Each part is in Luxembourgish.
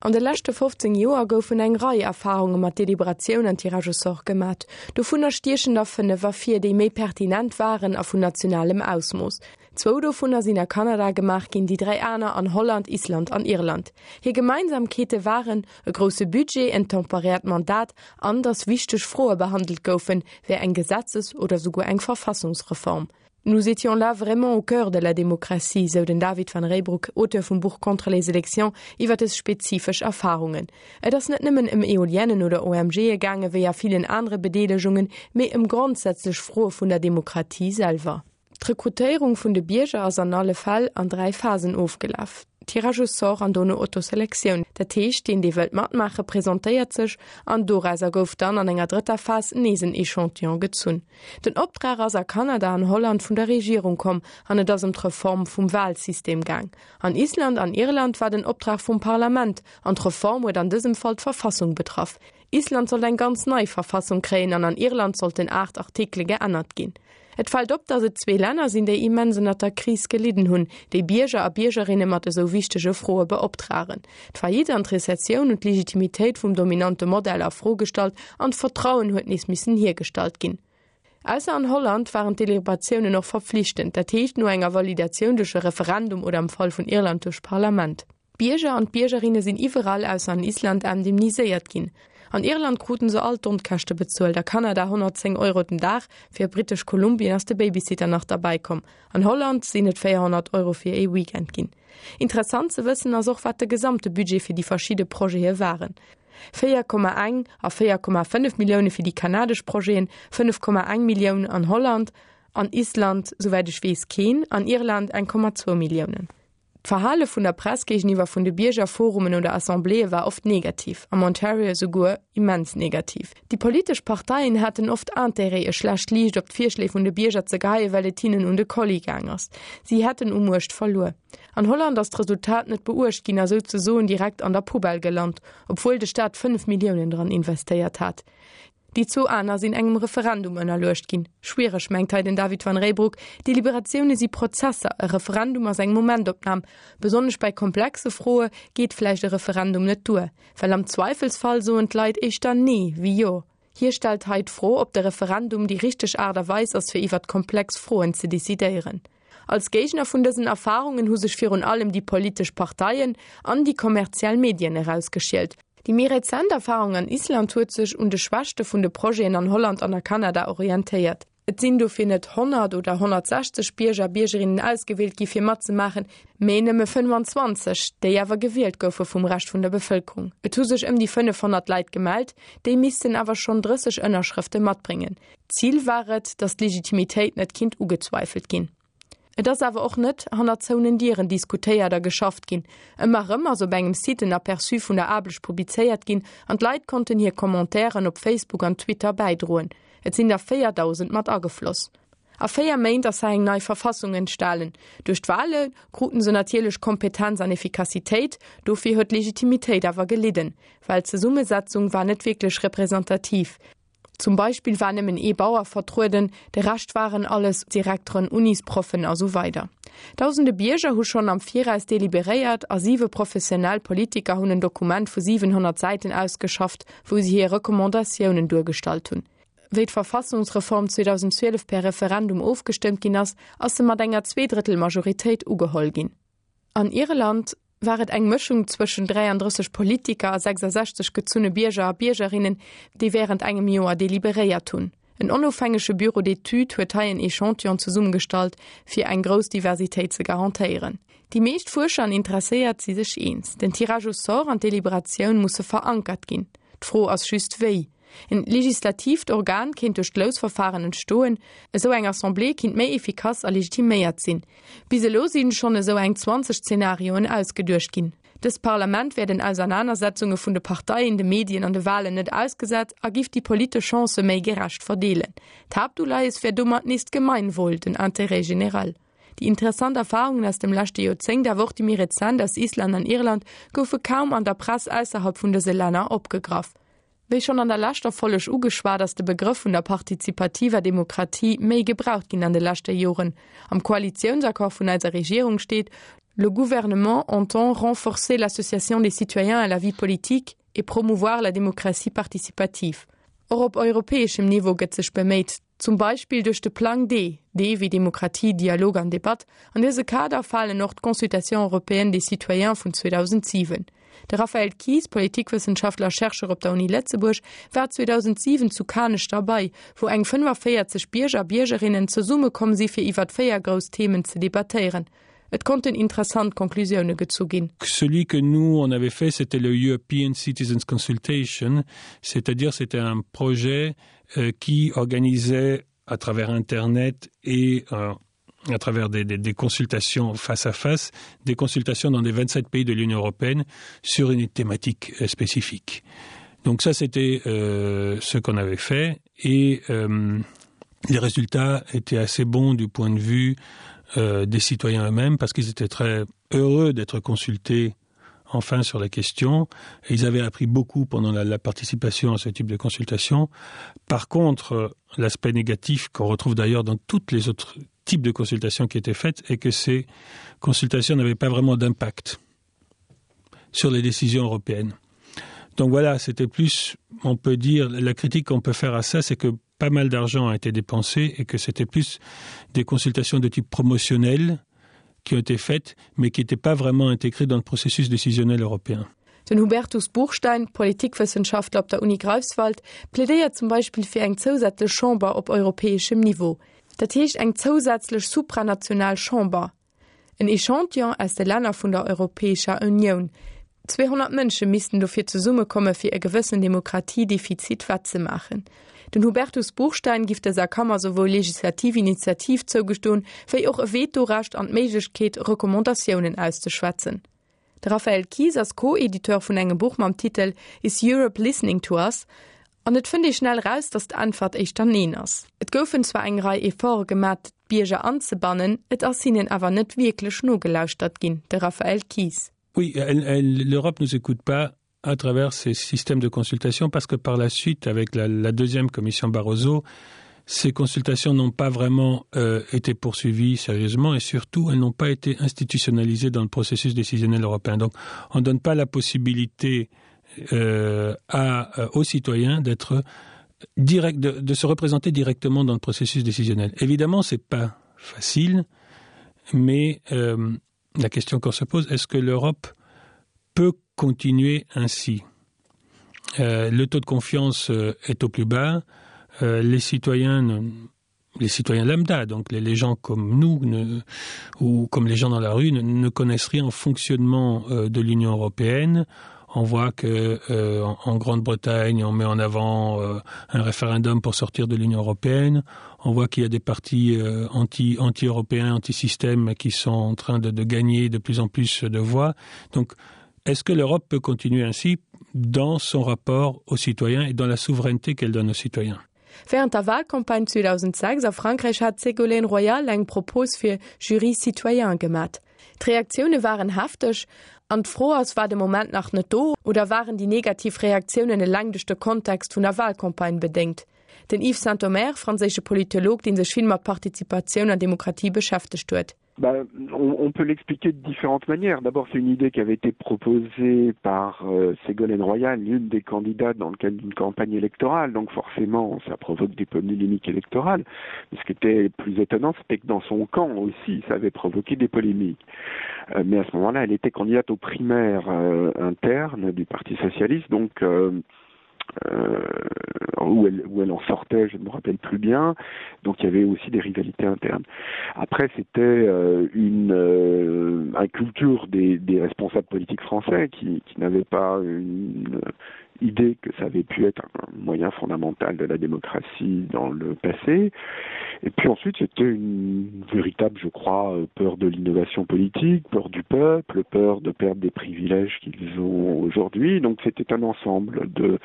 An de leschte 15 Joer goufen eng Rei Erfarunge mat Deliberatioun an Tirage au sort gemat. Dovunner stiechen der 5 ervir, déi méi pertinent waren a vun nationalem Ausmooss. Zwou dovunner sinn a Kanada gemaach ginn, déi 3 aner an Holland, Island an Irland. Hir Gemeinsamkeete waren, e grousse Budget, en temporäert Mandat an datt wichteg Froe behandelt goufen, wéi eng Gesetzes oder souguer eng Verfassungsreform. Nous étions là vraiment au cœur de la démocratie, sou den David Van Reybrouck, Auteur vum Buch Contre les élections, iwwer dës spezifesch Erfarungen. Et ass net nëmmen ëm Eoliennen oder OMGe gaange wéi a villen anere Bedeelegungen, mee ëm grondsätzlech Froe vun der Demokratie selwer. D'Rekrutéierung vun de Bierger ass an alle Fäll an 3 Phasen ofgelaf. Tirage au sort an dono Autoselektioun, dat heescht deen dee wëllt matmaache presentéiert sech an dorauser gouf dann an enger drëtter Phas nees en Echantillon gezunn. Den Optrag ass a Kanada an Holland vun der Regierung komm an et ass ëm d'Reform vum Wahlsystem gaang. An Island an Irland war den Optrag vum Parlament an d'Reform huet an dësem Fall d'Verfassung betraff. Island sollt eng ganz nei Verfassung kréien an an Irland sollten 8 Artikele geännert ginn. Et fält op, datt et zwee Länner sinn, déi immens ënnert der Kris gelidden hunn, déi Bierger a Biergerinne mat esou wichtege Froe beoptragen. D'Faillite an d'Rezessioun hunn d'Legitimitéit vum dominante Modell a Fro gestallt an d'Vertrauen huet nees missen hiergestallt ginn. Ausser an Holland waren d'Deliberatiounen och verpflichtend, dat heescht no enger Validatioun duerch e Referendum oder am Fall vun Irland duerch d'Parlament. D'Bierger an d'Biergerinne sinn iwwerall, ausser an Island, indemniséiert ginn. An Irland kruten se all d'Onkäschte bezuelt, a Kanada 110 Euro den Dag, fir Britesch Kolumbien ass de Babysitter nach derbäi komm. An Holland sinn et 400 Euro fir ee Weekend ginn. Interessant ze wëssen ass och, wat de gesamte Budget fir déi verschidde Projete waren, 4,1 a 4,5 Millioune fir déi kanadesch Projeten, 5,1 Millioun an Holland, an Island, souwäit ech weess, keen, an Irland 1,2 Milliounen. D'Verhale vun der Press géigeniwwer vun de Biergerforumen oder Assembléeë war oft negativ, am Ontario esouguer immens negativ. Déi politesch Parteien haten oft Intérêt, e schlecht Liicht op d'Virschléi vun de Bierger ze geheien, well et hinnen un de Kolli gaang ass. Si hätten u Muecht verluer. An Holland ass d'Resultat net beuecht ginn a souzesoen direkt an der Poubelle gelant, obwuel de Staat 5 Milliounen dran investéiert hat. Déi zwou aner sinn engem Referendum ënnerluecht ginn. Schwiereg, mengt hei den David Van Reybrouck, Deliberatioune si Prozesser, e Referendum ass eng Momentopnam. Besonnesch bei komplexe Froe geet vläicht e Referendum net duer, well am Zweifelsfall soen d'Leit éischter Nee wéi Jo. Hie stellt hei d'Fro, ob de Referendum déi richteg Aart a Weis ass fir iwwert komplex Froen ze decidéieren. Als Géigner vun dësen Erfarungen hu sech virun allem déi politesch Parteien an déi kommerziell Medien erausgeschielt. Déi méi rezent Erfarung an Island huet sech un de Schwächte vun de Projeten an Holland an a Kanada orientéiert. Et sinn dofir net 100 oder 160 Bierger a Biergerinnen ausgewielt gi fir matzemaachen, mee nëmme 25, déi awer gewielt goufe vum Rescht vun der Bevëlkerung. Et hu sech ëm déi 500 Leit gemellt, déi missten awer schonn 30 Ënnerschrëfte matbréngen. Zil war et, datt d'Legitimitéit net kinnt ugezweifelt ginn. Et ass awer och net hanner zouenen Dieren diskutéiert a geschafft ginn. Ëmmer erëm ass op engem Site en Aperçu vun der Aarbecht publizéiert ginn an d'Leit konnten hir Commentairen op Facebook an Twitter bäidroen. Et sinn der 4.000 mat agefloss. A 4 Méint ass hei eng nei Verfassung entstalen. Duerch d'Wale kruten se natierlech Kompetenz an Effikassitéit, dofir huet d'Legitimitéit awer gelidden, well d'Zesummesetzung war net wierklech representativ. Zum Beispill war nëmmen ee Bauer vertrueden, de Rescht waren alles Direkteren, Unisproffen a sou weider. Dausende Bierger hu schonn am Viraus deliberéiert a siwe professionell Politiker hunn en Dokument vu 700 Säiten ausgeschafft, wou si hir Recommandatiounen duergestallt hunn. Wéi d'Verfassungsreform 2012 per Referendum ofgestëmmt ginn ass, ass se mat enger Zweedrëttel-Majoritéit ugeholl ginn. An Irland war et eng Mëschung zwëschen 33 Politiker a 66 gezunne Bierger a Biergerinnen, déi wärend engem Joer deliberéiert hunn. En onofhängege Bureau d'études huet hei en Echantillon zesummegestallt, fir eng grouss Diversitéit ze garantéieren. Déi meescht Fuerscher an Interesséiert si sech eens, den Tirage au sort an d'Deliberatioun musse verankert ginn. D'Fro ass just wéi. En legislatiivt Organ kéint duerch d'Lousverfahren entstoen. Esou eng Assemblée kinnt méi efficace a legitiméiert sinn. Bis elo sinn schonn esou eng 20 Zenarioen ausgeduecht ginn. Dëst Parlament wär den Ausernanersetzunge vun de Parteien, de Medien an de Walen net ausgesat a giff déi politesch Chancë méi gerecht verdeelen. D'Haaptuleies wär domat nees d'Gemeinwohl, den Intérêt général. Déi interessant Erfarungen aus dem leschte Joerzéngt, awer och déi méi rezent aus Island an Irland, goufe kaum an der Press ausserhalb vun dëse Länner opgegraff. Wéi schonn an der leschter Folleg ugeschwat, ass de Begrëff vun der partizipativer Demokratie méi gebraucht ginn an de leschte Joren. Am Koalitiounsaccord vun eiser Regierung steet. Le gouvernement entend renforcer l'association des citoyens à la vie politique et promouvoir la démocratie participative. Och op europäeschem Niveau gëtt sech beméit, zum Beispill duerch de Plang D, D wéi Demokratie, Dialog an Debatt. An dëse Kader falen och d'Consultation européenne des citoyens vun 2007. De Raphaël Kies, Politikwëssenschaftler a Chercheur op der Uni Lëtzebuerg, war 2007 zu Kanech derbei, wou eng 45 Bierger a Biergerinnen zesummekomm si fir iwwert 4 grouss Themen ze debattéieren. Et konnten interessant Konklusioune gezu ginn. Celui que nous on avait fait c'était le European Citizens Consultation, c'est-à-dire c'était un projet euh, qui organisait à travers internet et euh, à travers des, des, des consultations face à face, des consultations dans les 27 pays de l'Union européenne sur une thématique euh, spécifique. Donc ça c'était euh, ce qu'on avait fait et euh, les résultats étaient assez bons du point de vue euh, des citoyens eux-mêmes parce qu'ils étaient très heureux d'être consultés enfin sur la question et ils avaient appris beaucoup pendant la, la participation à ce type de consultation. Par contre, l'aspect négatif qu'on retrouve d'ailleurs dans toutes les autres types de consultations qui étaient faites est que ces consultations n'avaient pas vraiment d'impact sur les décisions européennes. Donc voilà, c'était plus on peut dire la critique qu'on peut faire à ça, c'est que pas mal d'argent a été dépensé et que c'était plus des consultations de type promotionnel qui ont été faites, mais qui n'étaient pas vraiment intégrées dans le processus décisionnel européen. Den Hubertus Buchstein, Politikwëssenschaftler op der Uni Greifswald, plädéiert zum Beispill fir eng zousätzlech Chamber op europäeschem Niveau. Dat heescht eng zousätzlech supranational Chamber. En Echantillon aus de Länner vun der Europäescher Unioun. 200 Mënsche missten dofir zesummekomme fir e gewëssen Demokratiedefizit wettzemaachen. Den Hubertus Buchstein giff dëser Kammer souwuel legislativ Initiativ zougestoen, wéi och e Vetorecht an d'Méiglechkeet, Recommandatiounen auszeschwätzen. De Raphaël Kies ass Co-Editeur vun engem Buch mam Titel Is Europe listening to us? An et fënnt ee schnell raus, datt d'Äntwert éischter Neen ass. Et goufen zwar eng Rei Efforte gemat, d'Bierger anzebannen, et ass hinnen awer net wierklech nogelauschtert ginn. De Raphaël Kies. Oui, l'Europe nous écoute pas à travers ces systèmes de consultation parce que par la suite avec la, la deuxième commission Barroso, ces consultations n'ont pas vraiment euh, été poursuivies sérieusement et surtout elles n'ont pas été institutionnalisées dans le processus décisionnel européen. Donc on ne donne pas la possibilité euh, à, euh, aux citoyens d'être direct de, de se représenter directement dans le processus décisionnel. Évidemment, ce n'est pas facile, mais euh, la question qu'on se pose est-ce que l'Europe peut continuer ainsi euh, le taux de confiance euh, est au plus bas euh, les citoyens ne, les citoyens lambda donc les, les gens comme nous ne, ou comme les gens dans la rue ne, ne connaissent rien au fonctionnement euh, de l'union européenne on voit que euh, en, en Grande-Bretagne on met en avant euh, un référendum pour sortir de l'Union européenne on voit qu'il y a des partis euh, anti anti européens anti système qui sont en train de, de gagner de plus en plus de voix donc est-ce que l'Europe peut continuer ainsi dans son rapport aux citoyens et dans la souveraineté qu'elle donne aux citoyens Während der Wahlcampagne 2006 a Frankräich hat d'Ségolène Royal eng Propos fir Jury citoyen gemat. D'Reaktioune waren hefteg an d'Fro ass, War de Moment nach net do oder waren déi negativ Reaktiounen eleng duerch de Kontext vun der Wahlcampagne bedéngt? Den Yves Sintomer, franséische Politolog, dee sech vill mat Partizipatioun an Demokratie beschäftegt huet. Bah, on, on peut l'expliquer de différentes manières. D'abord, c'est une idée qui avait été proposée par euh, Ségolène Royal, l'une des candidates dans le cadre d'une campagne électorale. Donc forcément, ça provoque des polémiques électorales. Mais ce qui était plus étonnant, c'était que dans son camp aussi, ça avait provoqué des polémiques. Euh, mais à ce moment-là, elle était candidate aux primaires euh, internes du Parti socialiste. Donc euh, euh, où, elle, où elle en sortait, je ne me rappelle plus bien. Donc il y avait aussi des rivalités internes. Après, c'était euh, une euh, inculture des, des responsables politiques français qui, qui n'avaient pas une idée que ça avait pu être un moyen fondamental de la démocratie dans le passé. Et puis ensuite, c'était une véritable, je crois, peur de l'innovation politique, peur du peuple, peur de perdre des privilèges qu'ils ont aujourd'hui. Donc c'était un ensemble de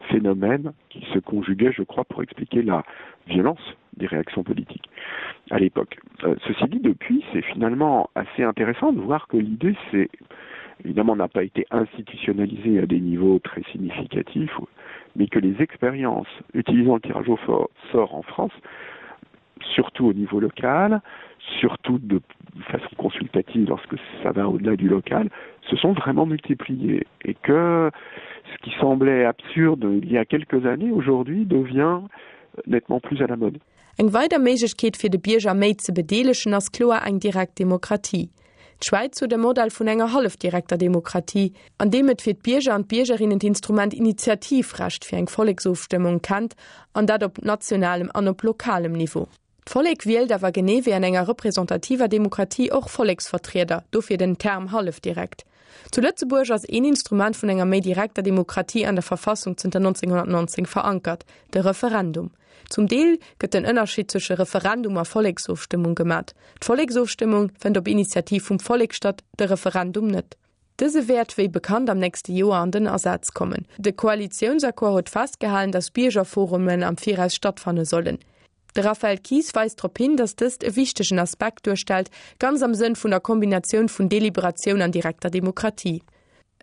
phénomènes qui se conjuguaient, je crois, pour expliquer la violence des réactions politiques à l'époque. Euh, ceci dit, depuis, c'est finalement assez intéressant de voir que l'idée, c'est évidemment n'a pas été institutionnalisée à des niveaux très significatifs, mais que les expériences utilisant le tirage au sort en France. surtout au niveau local, surtout de façon consultative lorsque ça va au-delà du local, se sont vraiment multipliées et que ce qui semblait absurde il y a quelques années aujourd'hui devient nettement plus à la mode. Eng weider Méiglechkeet fir de Bierger méi ze bedeelegen ass kloer eng direkt Demokratie. D'Schwäiz huet e Modell vun enger hallefdirekter Demokratie, an deem et fir d'Bierger an d'Biergerinnen d'Instrument Initiativrecht fir eng Volleksofstëmmung kennt, an dat op nationalem an op lokalem Niveau. D'Vollek wielt awer genee wéi an enger representativer Demokratie och Volleksvertrieder, dofir den Term hallefdirekt. Zu Lëtzebuerg ass een Instrument vun enger méi direkter Demokratie an der Verfassung zënter 1919 verankert, de Referendum. Zum Deel gëtt den Ënnerscheed zwësche Referendum a Volleksofstëmmung gemat. D'Volleksofstëmmung fënnt op Initiativ vum Vollek statt, de Referendum net. Dëse wäert wéi bekannt am nächste Joer an den Asaz kommen. De Koalitiounsaccord huet festgehalen, datt Biergerforumen am Viraus stattfanne sollen. De Raphaël Kies weist drop hin, datt dëst e wichtegen Aspekt duerstellt, ganz am Sënn vun der Kombinatioun vun Deliberatioun an direkter Demokratie.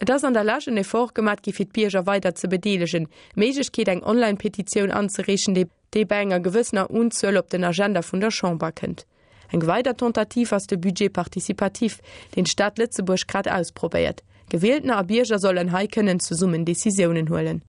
Et ass an der Lescht en Effort gemat gi fir d'Bierger weider ze bedeelegen, d'Méiglechkeet eng Online-Petitioun anzereechen, déi déi bei enger gewëssener Unzuel op den Agenda vun der Chamber kënnt. Eng weider Tentative ass de Budget participatif, deen d'Stad Lëtzebuerg grad ausprobéiert. Gewieltener a Bierger sollen hei kënnen zesummen Decisiounen huelen.